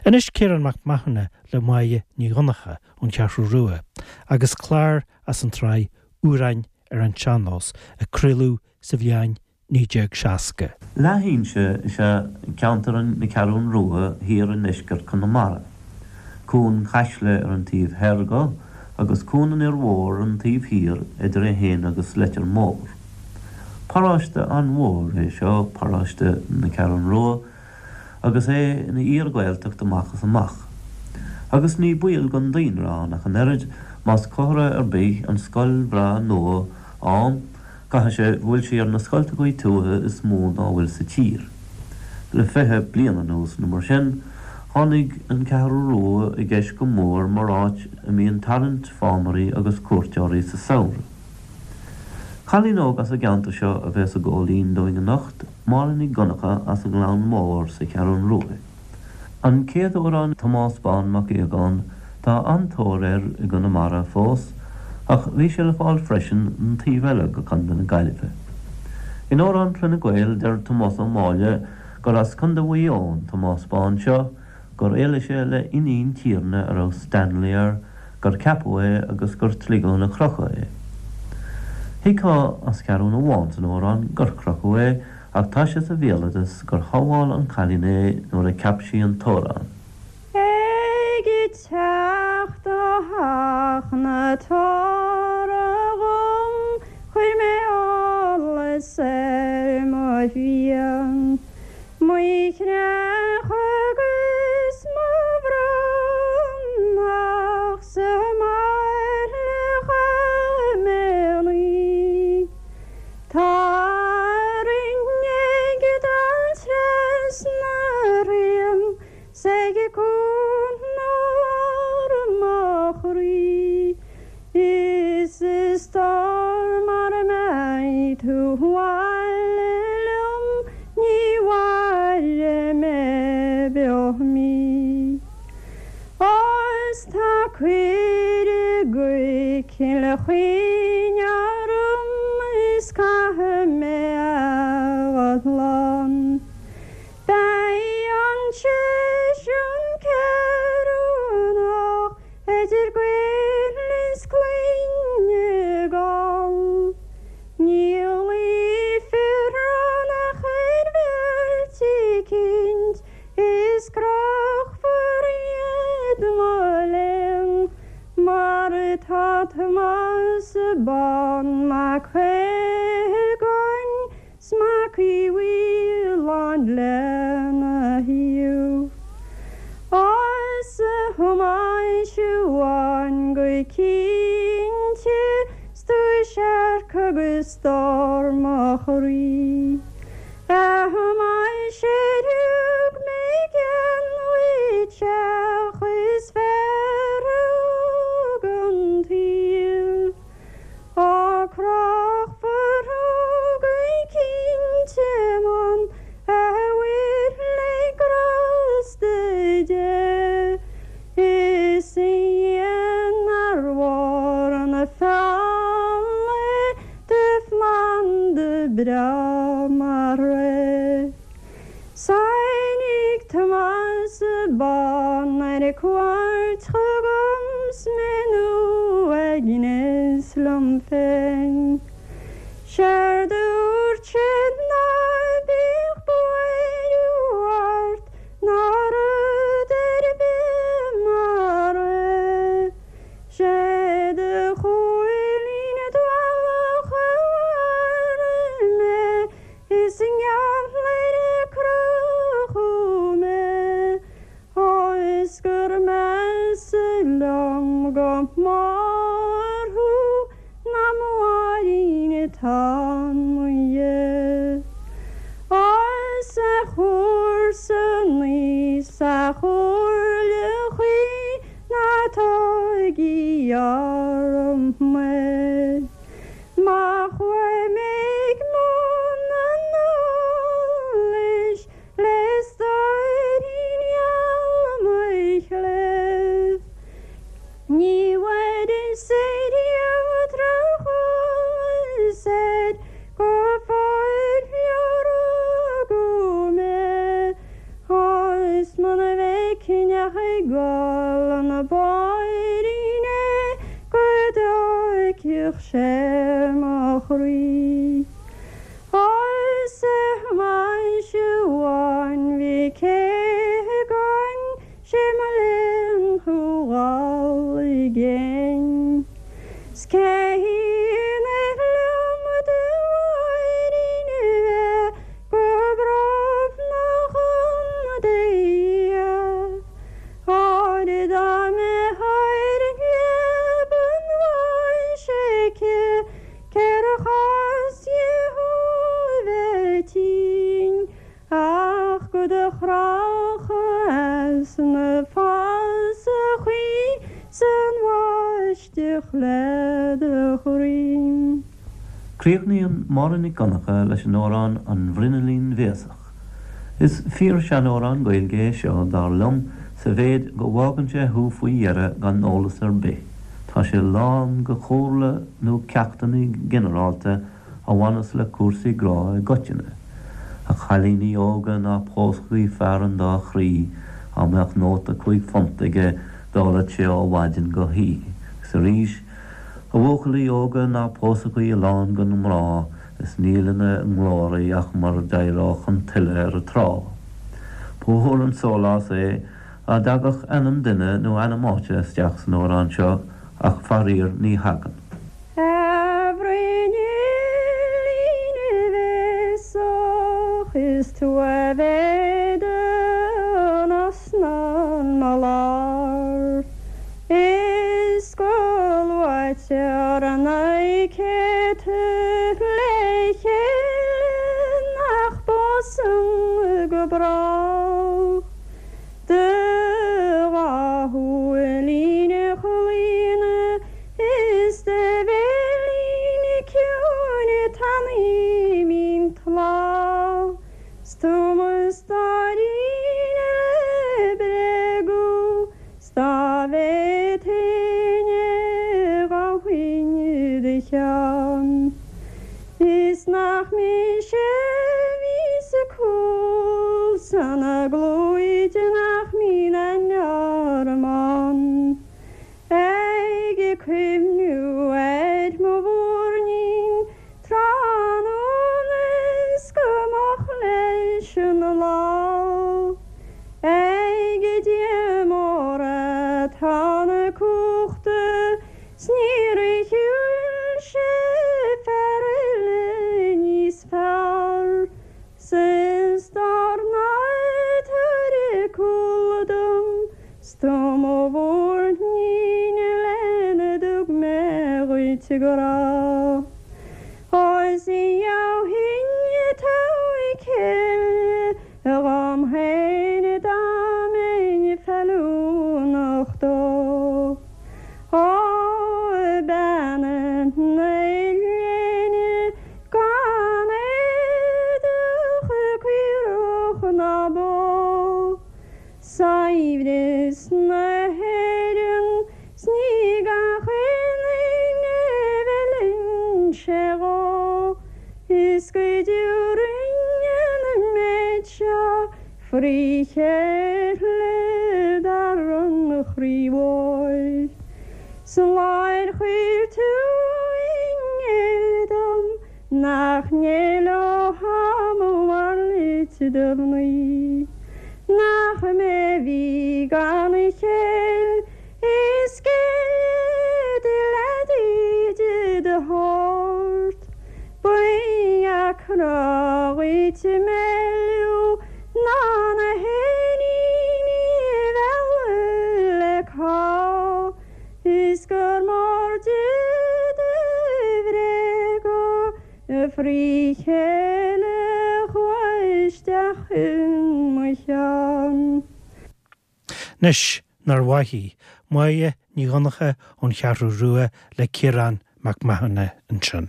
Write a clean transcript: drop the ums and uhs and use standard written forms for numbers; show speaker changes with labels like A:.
A: Anois Ciarán Mac Mathúna le Máire Ní Dhonncha ón Cheathrú Rua agus clár as an tsraith Amhráin ar an Sean-Nós a craoladh sa bhliain 1960.
B: Leathinse is ea ceantar na Ceathrún Rua thiar i ndeisceart Chonamara. Cuan Caisle ar an taobh thoir dho agus Cuan an Fhir Mhóir ar an taobh thiar idir é féin agus Leitir Móir. Paróiste an-mhór é seo, paróiste na Ceathrún Rua, agus é ina fhíor-Ghaeltacht amach is amach. Agus ní baol don daonra ann ach an oiread, más comhartha ar bith an scoil bhreá nua ann, Caithfidh sé go bhfuil sí ar na scoltachaí tuaithe is mó dá bhfuil sa tír. Le 20 bliain anuas nó mar sin, tháinig an Cheathrú Rua i gceist go mór mar áit a mbíonn tarraingt fámairí agus cuairteoirí sa samhradh. Cailín óg as an gceantar seo a bheas ag gabháil fhoinn dúinn anocht, Máire Nic Dhonncha as an nGleann Mór sa Cheathrún Rua. An chéad amhrán Tomás Bán Mac Aogáin, tá an-tóir air i gConamara fós, ach bhí sé le fáil freisin an taobh eile go Contae na Gaillimhe. In Amhrán Chloinne Gael deir Tomás Ó Máille gur as Contae Mhaigh Eo an Tomás Bán seo, gur éalaigh sé le iníon tiarna a raibh Stanley air, gur ceapadh é agus gur sligeadh ina chrochadh é. Thuigfeá as ceathrún amháin san amhrán gur crochadh é, Ach tá sé sa bhéaloideas gur shábháil an cailín é nuair a cheap sí an t-amhrán.
C: Ag teacht ó theach na tora dhom chuir mé allas ar mo mhian, mo chreach agus mo bhronnach sa mbaile chaith mé an oíche. Tarraing ag dul trasna rian 's ag cuan lár mo chroí Is a stór mara mbeidh tú abhaile liom ní mhairfidh mé beo mí. Is tá cuireadh go Cill Chaoin orm is caithfidh mé a dhul ann. Beidh an seisiún ceiriúnach idir Gaeil is Cloinne Gall. Ní luífear ann ach ar bheirt eicínt Is crochfar iad mo léan mar atá Tomás Bán Mac Aogáin 's Mac Uí Mhaoláin lena thaobh. Is a Thomáis Bháin go cinnte 's tú searc agus stór mo chroí. A Thomáis ar thug mé gean dhuit teach is fearr a thug an tsaol? Á crochfar thú go cinnte man a bhfuil le grásta Dé is a Dhia nár mhór an feall é Do phlanda breá mar é. 'S tháinig Tomás Bán ar cuairt chugam 's mé in uaigneas liom féin. 'Séard a dúirt sé ná bíodh buaireamh ort ná rud ar bith mar é. 'Sé do chúilín dualach a mharaigh mé is i ngeall air a crochadh mé is gur measa liom go mór thú ná mo Mháirín atá 'mo dhiaidh. Is a chomharsanaí 's a chomhairle chuí Ná tógaigí orm mé. Má chuaigh mé ag mbun an eolais le stóirín gheal mo chléibh, ní bhfuaireas ariamh drocheolas air go fóill ó rugadh mé. Is muna bhfeicfidh. cinneadh ag gol na báirín é go dtóigfeadh sé mo chroí. Arsa mise amháin bhí cé againn sé mo léan thú dhul i gcéin. 'S cé hionadh liom do mháirín a bheith go brobnach an dtaobh. Óir dá mbeadh ar an leaba bháis aici cér chás di thú a bheith tinn ach go do chrochadh as na fasachaí 's an bháisteach le do chroí.
B: Críochnaíonn Máire Nic Dhonncha leis an amhrán An Bhruinnillín Bhéasach. Is fíor-seanamhrán Gaeilge é seo, dar liom, sa mhéid go bhfágann sé thú faoi dheireadh gan eolas ar bith. Tá sé lán go chomhairle nó ceachtanna ginearálta a bhaineas le cúrsaí grá i gcoitinne. A chailíní óga ná pósaigí fear an dá chroí, dá mbeadh nóta £5 aige d'ólfadh sé ó mhaidin go hoíche. Agus arís, a bhuachaillí óga ná pósaigí a lán go na mná is níl ina nglóraí ach mar d'éireodh an tuile ar an trá. Ba mhór an sólás é dá dtagadh ainm duine nó ainm áite isteach san amhrán seo ach faraor ní thagann.
C: A bhruinnillín bhéasach, is tú a bheidh don osna 'mo lár. Is go luaitear na céadta le chéile nach bpósann go brách. Do dhá shúilín chlaona is do bhéilín ciúin tanaí mín tláth 's tú mo stóirín le bréagadh 's dá bhféadfainn é ghabhfainn i do cheann. Is nach mise a bhí sa cúl san agóid nach mbíonn aithne orm ann. Ag cuimhniú ar mo mhúirnín tráthnóna is go moch leis an lá. Ag Dia mór atá na cumhachta 's níor shiúil sé fear eile níos fearr 's is dár ndóigh tabhair cúl dom 's tú mo mhúirnín lena dtug mé dhuit grá. Ó is gheobhainn togha céile dhom féin dá mbeinn feiliúnach dó. Ó bean na léine gan éadach caorach ná bó, saibhreas na hÉireann 's ní gach aon duine a bhfeileann sé dhó, is go dtabharfainn an méid seo Frí chéile dar an chroí mhóir. 'S an lá ar chuir tú i ngéill dom nach n-éileofá mo mhallacht do mhnaoi. Nach mé a bhí gan chéill is géille do leadaí de do shórt. Ba dheacra dhuit mealladh ná na héiníní a mhealladh le cá is gur mór di do bhréaga frí chéile a chuaigh isteach i mo cheann.
A: Anois, nár mhaith í? Máire Ní Dhonncha ón Cheathrú Rua le Ciarán Mac Mathúna ansin.